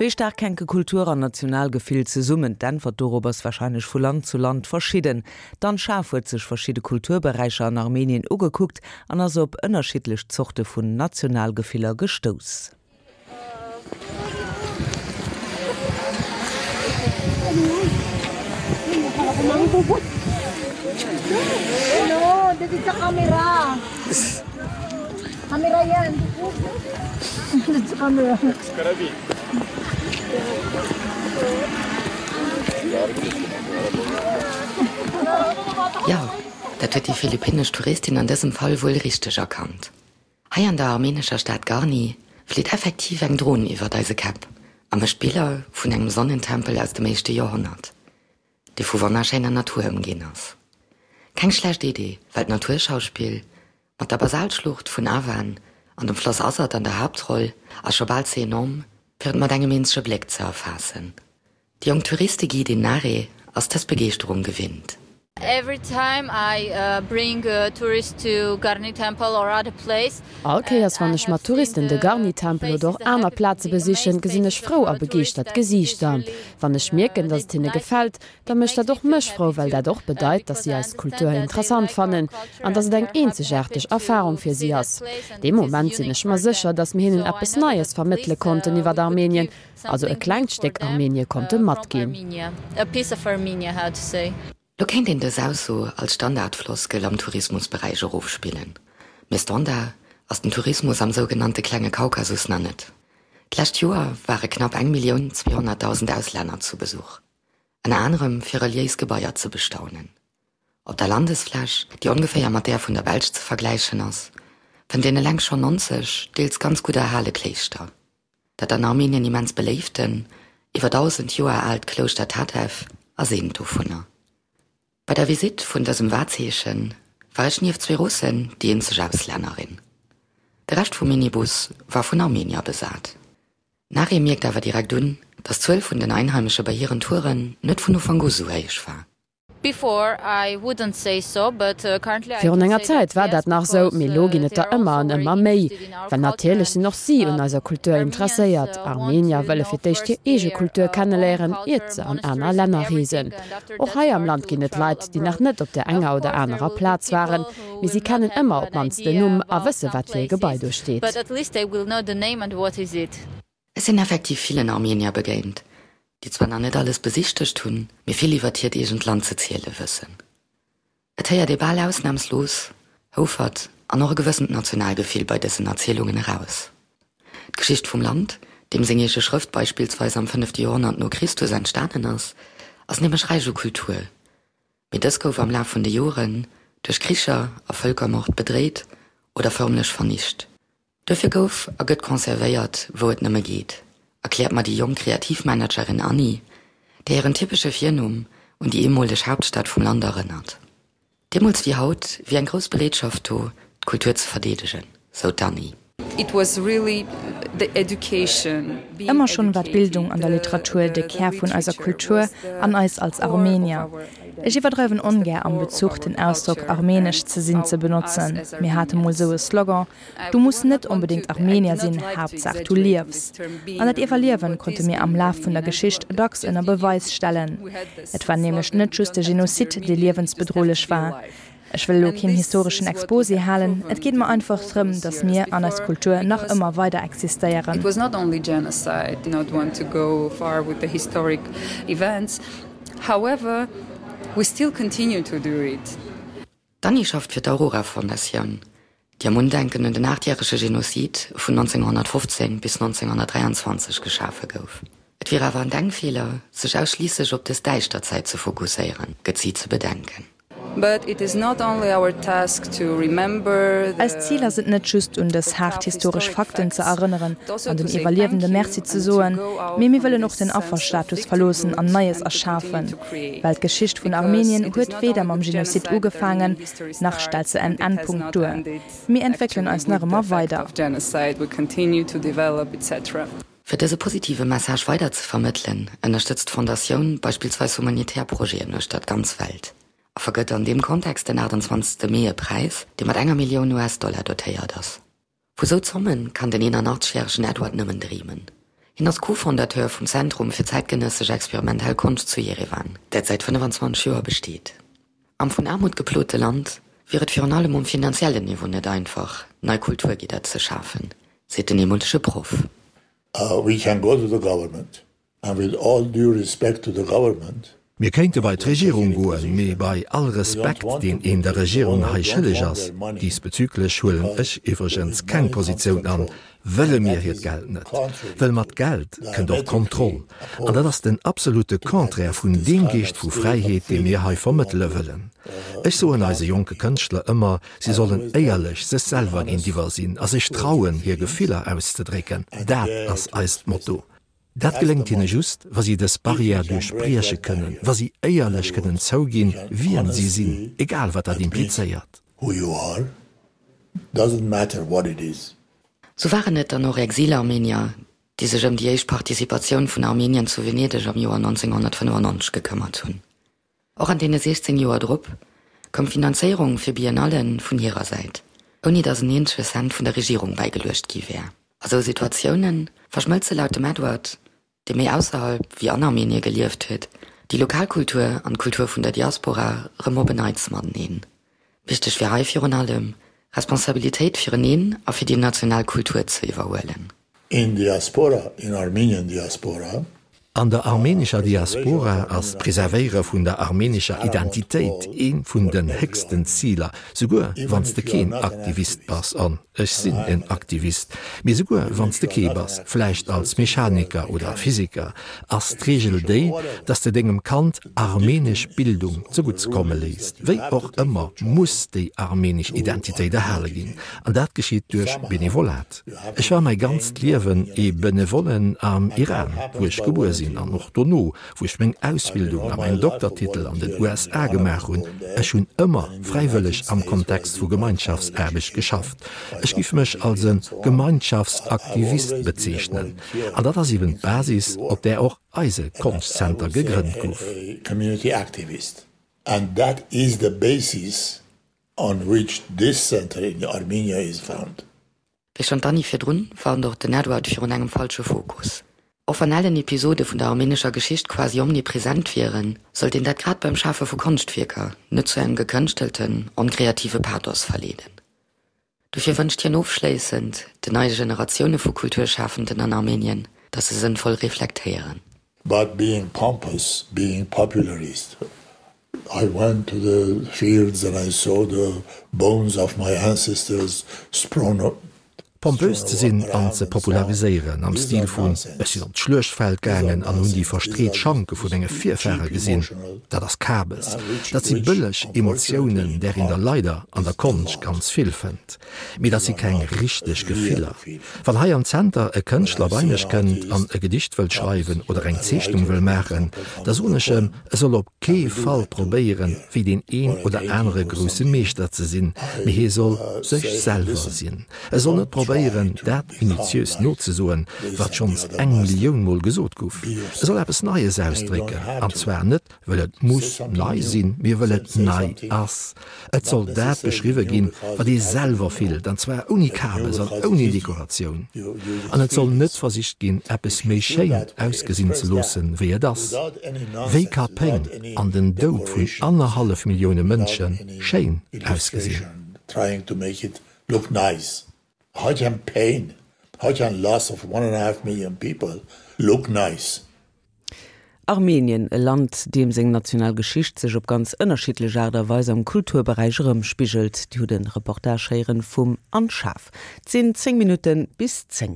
Wéi staark hänke Kultur an Nationalgefill zesummen? D'Äntwert dorop ass warscheinlech vu Land zu Land verschidden. D'Anne Schaaf huet sech verschidde Kulturberäicher an Armenien ugekuckt an ass op ënnerschiddlech Zorte vun Nationalgefiller gestouss. Jo, dat huet déi philippinnesch Touristin an dësem Fall wuel richteg erkannt. Hei an der armenescher Stad Garni flitt effektiv eng Dron iwwert eise Käpp a mécht Biller vun engem Sonnentempel aus dem éischte Joerhonnert, dee vu wonnerschéiner Natur ëmginn ass. Keng schlecht Idee, well d'Naturschauspill mat der Basaltschlucht vun Avan an dem Floss Azat an der Haaptroll ass scho bal ze enorm, fir et mat engem eenzege Bléck ze erfaassen. Déi jonk Touristeguidin Nare ass dës Begeeschterung gewinnt. All Kéiers wann ech mat Touristen de Garni-Tempel oder och aner Plaze besichen, gesinn ech frou a begeeschtert Gesiichter. Wann ech mierken, datt et hinne gefält, da mécht dat och mech frou, well dat och bedeit, datt si eis Kultur interessant fannen an datt et eng eenzegaarteg Erfarung fir si ass. Dee Moment sinn ech mer sécher, datt mir hinnen eppes Neies vermëttele konnten iwwert Armenien, also e klengt Stéck Armenie konnte matginn. Lo kéint een dës Ausso als Standardfloskel am Tourismusberäich erofspillen, mee Standard ass den Tourismus am sougenannte klenge Kaukasus nach net. D'lescht Joer ware knapp 1.200.000 Auslänner zu Besuch, ënner anerem fir reliéis Gebaier ze bestaunen. Op der Landesfläch, déi ongeféier mat där vun der Belsch ze vergläichen ass, fënnt een eleng schonn 90 deels ganz gutt erhale Kléischter. Dat an Armenien immens beléiften, iwwer 1.000 Joer aalt Klouschter Tatev ass eent dovunner. Bei der Visitt vun dësem Wahrzeeche war ech nieft zwee Russen déi eenzeg Auslännerin. De Rescht vum Minibus war vun Armenier besat. D'Nareh mierkt awer direkt un, datt d'Zuel vun den Einheimesche bei hiren Touren net vun Ufank u sou héich war. Virun enger Zäit war dat nach esou, mee elo ginn et der ëmmer an ëmmer méi. Well natierlech sinn och si un eiser Kultur interesséiert. Armenier wëlle fir d'éischt hir eege Kultur kenneléieren, iert se an aner Länner reesen. Och hei am Land ginn et Leit, déi nach net op där enger oder anerer Plaz waren, mee si kennen ëmmer op d'mannst den Numm a wësse wat fir e Gebai do steet. Ech sinn effektiv villen Armenier begéint, déi zwar nach net alles besichtegt hunn, mee vill iwwert hiert eegent Land ze ziele wëssen. Et héiert ee bal ausnamslos Houfert an och e gewëssent Nationalgefill bei dësen Erzielungen eraus. D'Geschicht vum Land, deem seng eege Schrëft beispillsweis am fënnefte Joerhonnert no Christus entstanen ass, ass nämlech räich u Kultur, mee dës gouf am Laf vun de Joren duerch Kricher a Vëlkermord bedréit oder förmlech vernicht. Duerfir gouf a gëtt conservéiert, wou et nëmme geet, erkläert mer déi jonk Kreativmanagerin Annie, där hiren typesche Virnumm un déi eemoleg Haaptstad vum Land erënnert. Deemools wéi haut wier eng grouss Bereetschaft do, d'Kultur ze verdeedegen, sou d'Annie. Ëmmer schonn war d'Bildung an der Literatur de Kär vun eiser Kultur an eis als Armenier. Ech iwwerdreiwen ongär am Bezuch den Ausdrock armenesch ze sinn ze benotzen. Mir hate mol sou e Slogan, Du muss net onbedéngt Armenier sinn, Haaptsaach du liefs. An dat Iwwerliewen konnte mir am Laf vun der Geschicht dacks ënner Beweis stellen. Et war nämlech net just de Genozid, dee liewensbedrohlech war. Ech wëll elo keen historeschen Exposé halen, et geet mer einfach drëm, datt mir an eis Kultur nach ëmmer weider existéieren. D'Annie schafft fir d'Aurora Fondatioun, déi am Undenken un den aachtjärege Genozid vun 1915 bis 1923 geschafe gouf. Et wier awer en Denkfeeler, sech ausschliisslech op dës däischter Zäit ze fokusséieren, gëtt si ze bedenken. Eist Zil ass et net just, un dës haart historesch Fakten ze erënneren an den Iwwerliewende Merci ze soen, mee mir wëllen och den Afferstatus verloossen an Neies erschafen. Well d'Geschicht vun Armenien huet weder mam Genozid ugefaangen, nach stellt se en Endpunkt duer. Mir entwéckelen eis nach ëmmer weider. Fir dëse positive Message weider ze vermëttelen, ënnerstëtzt d'Fondatioun beispillsweis humanitär Projeten uechter d'ganz Welt a vergëtt an deem Kontext den 28 Mee e Präis, dee mat enger Millioun US-Dollar dotéiert ass. Vu sou Zomme kann den 81 järegen Edward nëmmen dreemen. Hien ass Co-Fondateur vum Zentrum fir zäitgenëssesch experimentell Konscht zu Jerewan, dat säit 25 Joer besteet. Am vun Aarmut geplote Land wier et virun allem um finanziellen Niveau net einfach, nei Kulturgidder ze schafen, seet den eemolege Proff. We can go to the government and with all due respect to the government, Mir kéinte bei d'Regierung goen, mee bei all Respekt, deen een der Regierung hei schëlleg ass, diesbezüglech huelen ech iwwregens keng Positioun an, wëlle mir hiert Geld net. Wëll mat Geld kënnt och Kontroll. An dat ass den absolute Contraire vun deem Geescht vu Fräiheet, dee mir hei vermëttele wëllen. Ech soen eise jonke Kënschtler ëmmer, si sollen éierlech sech selwer géintiwwer sinn a sech trauen, hir Gefiller auszedrécken. Dat ass eist Motto. Dat geléngt hinne just, wa si dës Barrière duerchbrieche kënnen, wa si éierlech kënnen zouginn, wien si sinn, egal wat dat implizéiert. Sou waren et dann och Exilarmenier, déi sech ëm déi éischt Participatioun vun Armenien zu Venedeg am Joer 1995 gekëmmert hunn. Och an deene 16 Joer drop koum d'Finanzéierung fir Biennallen vun hirer Säit, ouni datt en eenzege Cent vun der Regierung bäigeluecht gi wär. A sou Situatioune verschmëlze laut dem Edward, dee méi ausserhalb wéi an Armenie gelieft huet, déi lokal Kultur an d'Kultur vun der Diaspora rëm op en Neits mateneen. Wichteg wier hei virun allem, Responsabilitéit fireneen a fir déi national Kultur ze iwwerhuelen. In diaspora, in Armenian diaspora. An der armenescher Diaspora ass d'Preservéiere vun der armenescher Identitéit ee vun den héchsten Ziler, souguer wann s de keen Aktivist bass, an ech sinn en Aktivist, mee souguer wann s de kee bass, vläicht als Mechaniker oder Physiker, ass d'Reegel déi, dass de dengem Kand armenesch Bildung zegutts komme léisst. Wéi och ëmmer muss déi armenesch Identitéit erhale ginn, an dat geschitt duerch Benevolat. Ech war mäi ganzt Liewen ee Benevollen am Iran, wou ech gebuer sinn, an och dono, wou ech meng Ausbildung a mäin Doktertitel an den USA gemaach hunn. Ech hunn ëmmer fräiwëlleg am Kontext vu Gemeinschaftsaarbecht geschafft. Ech giff mech als e Gemeinschaftsaktivist bezeechnen. An dat ass eben d'Basis, op där och eise Konschtzenter gegrënnt gouf. On which this center in Armenia is found. Wéi schonn d'Annie virdrun, warnt och den Edward virun engem falsche Fokus. Och wann ellen Episode vun der armenescher Geschicht quasi omnipresent wieren, sollt een dat grad beim Schafe vu Konschtwierker net zu engem gekënschtelten, onkreative Pathos verleeden. Dofir wënscht hien ofschléissend den neie Generatioune vu Kulturschafenden an Armenien, datt se sënnvoll reflektéieren. But being pompous, being popularist, I went to the fields and I saw the bones of my ancestors sprown Pompös ze sinn an ze populariséieren am Stil vun ech sinn op d'Schluechtfeld gaangen an hunn déi verstreet Schanke vu menge Virfahre gesinn, dat ass Kabes. Dat si bëlleg Emotiounen, där een der leider an der Konscht ganz vill fënnt. Mee dat si keng richteg Gefiller. Wann hei am Zenter e Kënschtler bei mech kënnt an e Gedicht wëllt schreiwen oder eng Zeechnung wëll maachen, da soen ech em, e soll op kee Fall probéieren, wéi deen een oder anere grousse Meeschter ze sinn, mee hie soll sech selwer sinn. E soll net probéieren, dat minutiös nozesoen, wat schonns eng Millioun Mol gesot guff. E soll eppes Neies ausdrécken, an zwar net, wëll et muss nei sinn, mee wëll et nei ass. Et soll dat beschriwwe ginn, wat ee selwer fillt, an zwar ouni Kabes an ouni Dekoratioun. An et soll net versicht ginn, eppes méi schéin ausgesinn ze loossen, wéi et ass. Wéi ka Péng an den Doud vun annerhallef Millioune Mënsche schéin ausgesinn? Look nice. How can pain, how can loss of one and a half million people look nice? Armenien, e Land, deem seng national Geschicht sech op ganz ënnerschiddlech Aart a Weis am Kulturberäich erëmspigelt. Dir hutt e Reportage héieren vum Anne Schaaf. Et sinn 10 Minutten bis 10.